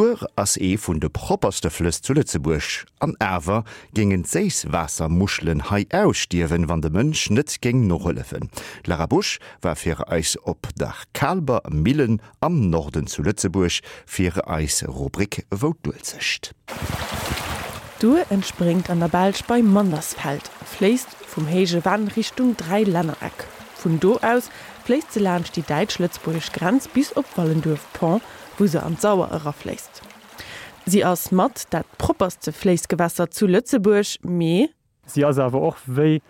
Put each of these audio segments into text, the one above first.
D'Our ass ee vun de propperste Flëss zu Lëtzebuerg. An awer géingen d'Séisswaassermuschelen hei ausstierwen, wann de Mënsch net géing nohëllefen. D'Lara Busch war fir eis op der Kaalber Millen am Norden zu Lëtzebuerg fir eis Rubrik Wou d'Uelzecht. D'Our entspréngt an der Belsch bei Mandersfeld a fléisst vum Héije Venn Richtung Dräilännereck. Vun do aus fléisst se laanscht déi däitsch-lëtzebuergesch Grenz bis op Wallenduerf-Pont, wou se an d'Sauer erafléisst. Si ass mat dat propperste Fléissgewässer zu Lëtzebuerg, mee. Si ass awer och wéi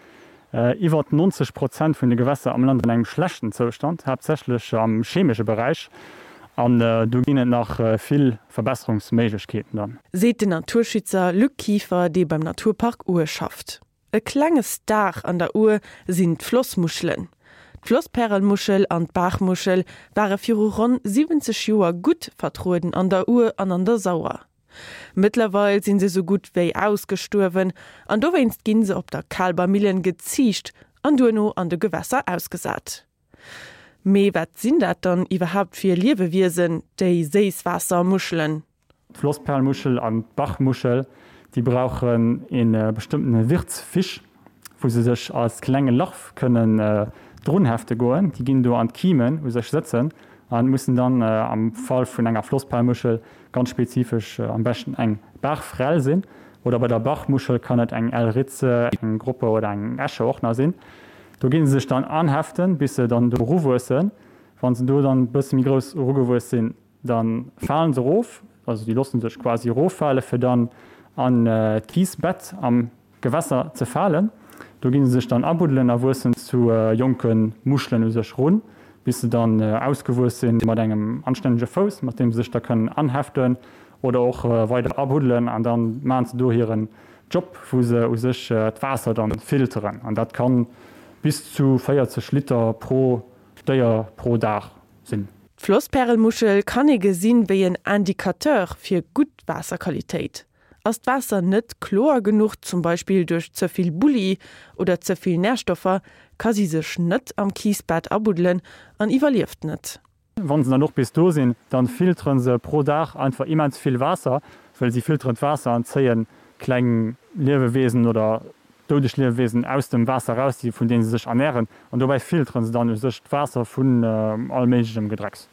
iwwer 90 Prozent vun de Gewässer am Land an engem schlechten Zoustand, haaptsächlech am chemesche Beräich, an do ginn et nach vill Verbesserungsméiglechkeeten dann. Seet den Naturschützer Luc Kieffer, dee beim Naturpark Our schafft. E klenge Star an der Our sinn d'Flossmuschelen. D'Flosspärelmuschel an d'Baachmuschel ware viru ronn 70 Joer gutt vertrueden an der Our an an der Sauer. Mëttlerweil sinn se sou gutt wéi ausgestuerwen an dowéinst ginn se op der Kaalber Millen geziicht an duerno an de Gewässer ausgesat. Mee wat sinn dat dann iwwerhaapt fir Liewewiesen, déi Séisswaassermuschelen? D'Flossperlmuschel an d'Bachmuschel, déi brauchen ee bestëmmtene Wirtsfisch, wou se sech als klenge Larv kënnen drunhefte goen. Déi ginn do an d'Kimen u sech sëtzen a mussen dann am Fall vun enger Flossperlmuschel ganz spezifesch am beschten eng Baachfrell sinn. Oder bei der Bachmuschel kann et eng Elritze, eng Groppe oder eng Äsche och nach sinn. Do gi se sech dann anheften, bis se dann do eruwuessen. Wa se do dann e bësse méi grouss erugewuess sinn, Da falen se erof, also déi loosse sech quasi eroffale fir dann an d'Kiisbett am Gewässer ze falen. Do gi se sech dann abuddelen a wuessen zu jonke Muschelen u sech run, bis se dann ausgewuess sinn mat engem anstännege Fouss, mat deem se sech da kënnen anheften oder och weider abuddelen. An da maachen se do hiren Job, wou se u sech d'Waasser dann filteren. An dat kann bis zu 40 Liter pro Déier pro Dag sinn. D'Flosspärelmuschel kann ee gesinn wéi en Indicateur fir gutt Waasserqualitéit. Ass d'Waasser net kloer genuch, zum Beispill duerch ze vill Bulli oder ze vill Närstoffer, ka si sech net am Kiisbett abuddelen an iwwerlieft net. Wann se dann och bis do sinn, dann filteren se pro Dag einfach immens vill Waasser, well si filteren d'Waasser an zéien kleng Liewewiesen oder doudeg Liewewiesen aus dem Waasser eraus, déi vun deenen se sech ernären, an dobäi filteren se dann u sech d'Waasser vun all méiglechem Gedrecks.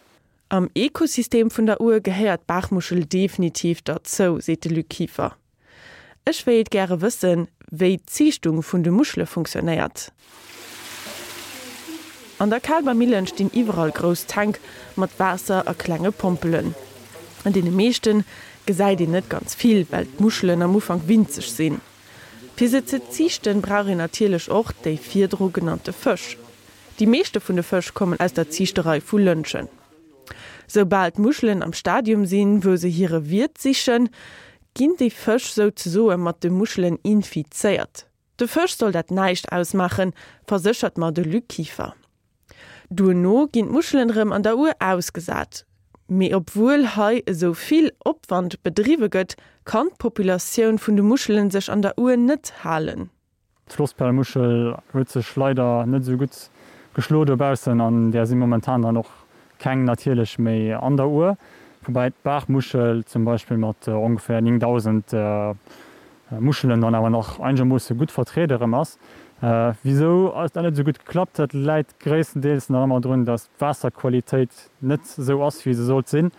Am Ekosystem vun der Our gehéiert d'Baachmuschel definitiv derzou, seet de Luc Kieffer. Ech wéilt gäre wëssen, wéi d'Ziichtung vun de Muschele funktionéiert. An der Kaalber Millen stinn iwwerall grouss Tänk mat Waasser a klenge Pompelen. An deene meeschte gesäit een net ganz vill, well d'Muschelen am Ufank winzeg sinn. Fir se ze ziichten, brauch een natierlech och déi virdru genannte Fësch. Déi meeschte vun de Fësch kommen aus der Ziichterei vu Lëntgen. Soubal d'Muschelen am Stadium sinn, wou se hire Wiert sichen, ginn déi Fësch souzesoe mat de Muschelen infizéiert. De Fësch soll dat näischt ausmaachen, verséchert mer de Luc Kieffer. Duerno ginn d'Muschelen erëm an der Our ausgesat. Mee obwuel hei esou vill Opwand bedriwwe gëtt, kann d'Populatioun vun de Muschelen sech an der Our net halen. D'Flossperlmuschel huet sech leider net esou gutt geschlo dobaussen an där si momentan dann och keng natierlech méi an der Our. Woubäi d'Baachmuschel zum Beispill mat ongeféier 9.000 Muschelen dann awer nach einegermoosse gutt vertriede erëm ass. Wisou ass dat net esou gutt geklappt? Dat läit gréisstendeels nach ëmmer drun, datt d'Waasserqualitéit net esou ass, wéi se sollt sinn.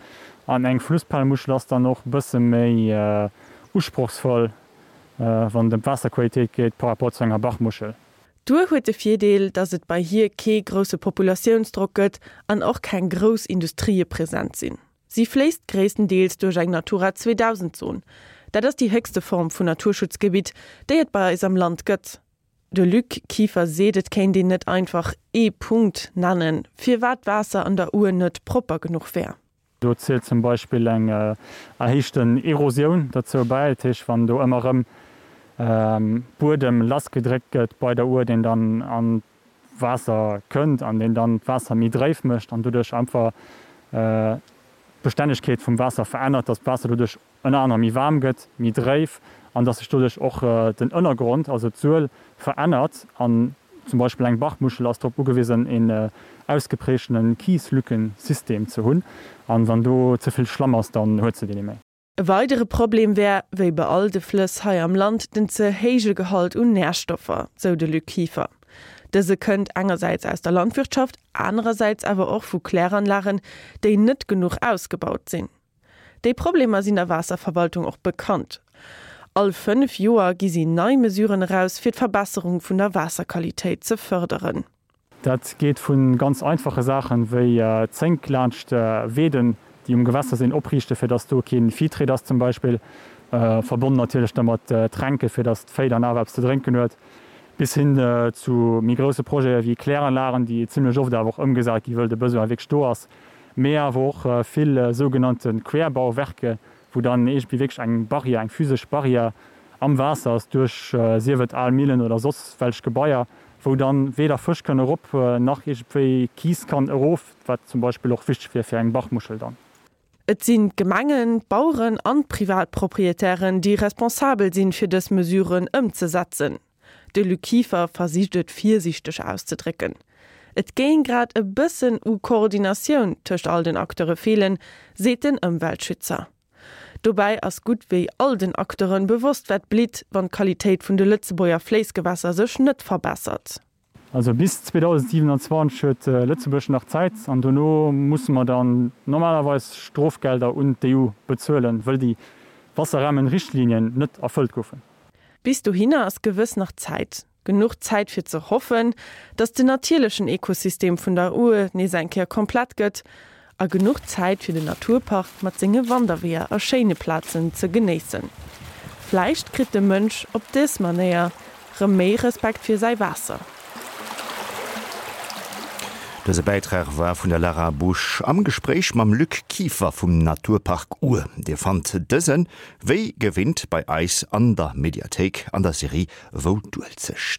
An eng Flusspalmuschel ass dann och e bësse méi usprochsvoll, wann et ëm d'Waasserqualitéit geet, par rapport zu enger Bachmuschel. D'Our huet de Virdeel, datt et bei hir kee grousse Populatiounsdrock gëtt an och keng grouss Industrië present sinn. Si fléisst gréisstendeels duerch eng Natura 2000 Zon. Dat ass déi héchste Form vun Naturschutzgebitt, déi et bei eis am Land gëtt. De Luc Kieffer seet, et kéint een net einfach ee Punkt nennen, firwat d'Waasser an der Our net propper genuch wär. Do zielt zum Beispill eng erhéichten Erosioun derzou bäi, dat heescht wann do ëmmer erëm Buedem lassgedréckt gëtt bei der Our, deen dann an Waasser kënnt an deen dann d'Waasser méi dréif mécht an doduerch einfach d'Bestännegkeet vum Waasser verännert, dass d'Waasser doduerch ënner anerem méi waarm gëtt, méi dréif an dass sech doduerch och den Ënnergrond, also d'Suel, verännert an. Zum Beispill eng Bachmuschel ass drop ugewisen een ausgeprägtene Kieslückensystem ze hunn, an wann do ze vill Schlamm ass, dann huet se deen net méi. E weidere Problem wär, wéi bei all de Flëss hei am Land, den ze héije Gehalt un Närstoffer, sou de Luc Kieffer. Dëse kënnt engersäits aus der Landwirtschaft, anerersäits awer och vu Kläranlagen, déi net genuch ausgebaut sinn. Déi Problemer sinn der Waasserverwaltung och bekannt. All 5 Joer gi si nei Mesuren eraus, fir d'Verbesserung vun der Waasserqualitéit ze fërderen. Dat geet vu ganz einfache Saachen, wéi Zénk laanscht Weeden, déi um Gewässer sinn, opriichten, fir dass do kee Vihtréit ass zum Beispill, verbonnen natierlech da mat Tränke fir dass d'Véi dann awer eppes ze drénken huet, bis hin zu méi grousse Projete wéi Kläranlagen, déi zimlech oft awer och ëmgesat gi wëll de Besoin wierklech do ass, mee awer och vill sougenannte Querbauwerke, wou dann iergendwéi wierklech eng Barrière, eng physesch Barrière am Waasser ass duerch sief et al Millen oder soss welch Gebaier, wou dann weder Fësch kënne erop nach iergendwéi Kiis kann erof, wat zum Beispill och wichteg wier fir eng Bachmuschel dann. Et sinn d'Gemengen, d'Baueren an d'Privatproprietären, déi responsabel sinn, fir dës Mesuren ëmzesetzen. De Luc Kieffer versicht et virsiichteg auszedrécken. Et géing grad e bëssen u Koordinatioun tëscht all den Acteure feelen, seet den Ëmweltschützer. Dobäi ass gutt wéi all den Acteuren bewosst wat blitt, wann d'Qualitéit vun de Lëtzebuerger Fléissgewässer sech net verbessert. Also bis 2027 huet Lëtzebuerg nach Zäit an dono musse mer dann normalerweis Strofgelder un d'EU bezuelen, wëll déi Wasserrahmenrichtlinien net erfëllt goufen. Bis dohinner ass gewëss nach Zäit. Genuch Zäit fir ze hoffen, datt den natierlechen Ekosystem vun der Our nees eng Kéier komplett gëtt a genuch Zäit fir den Naturpark mat senge Wanderweeër a schéine Plazen ze genéissen. Vläicht kritt de Mënsch op dës Manéier rëm méi Respekt fir säi Waasser. Dëse Bäitrag war vun der Lara Busch am Gespréich mam Luc Kieffer vum Naturpark Our. Dir fannt dësen wéi gewinnt bei eis an der Mediathéik an der Serie Wou d'Uelzecht.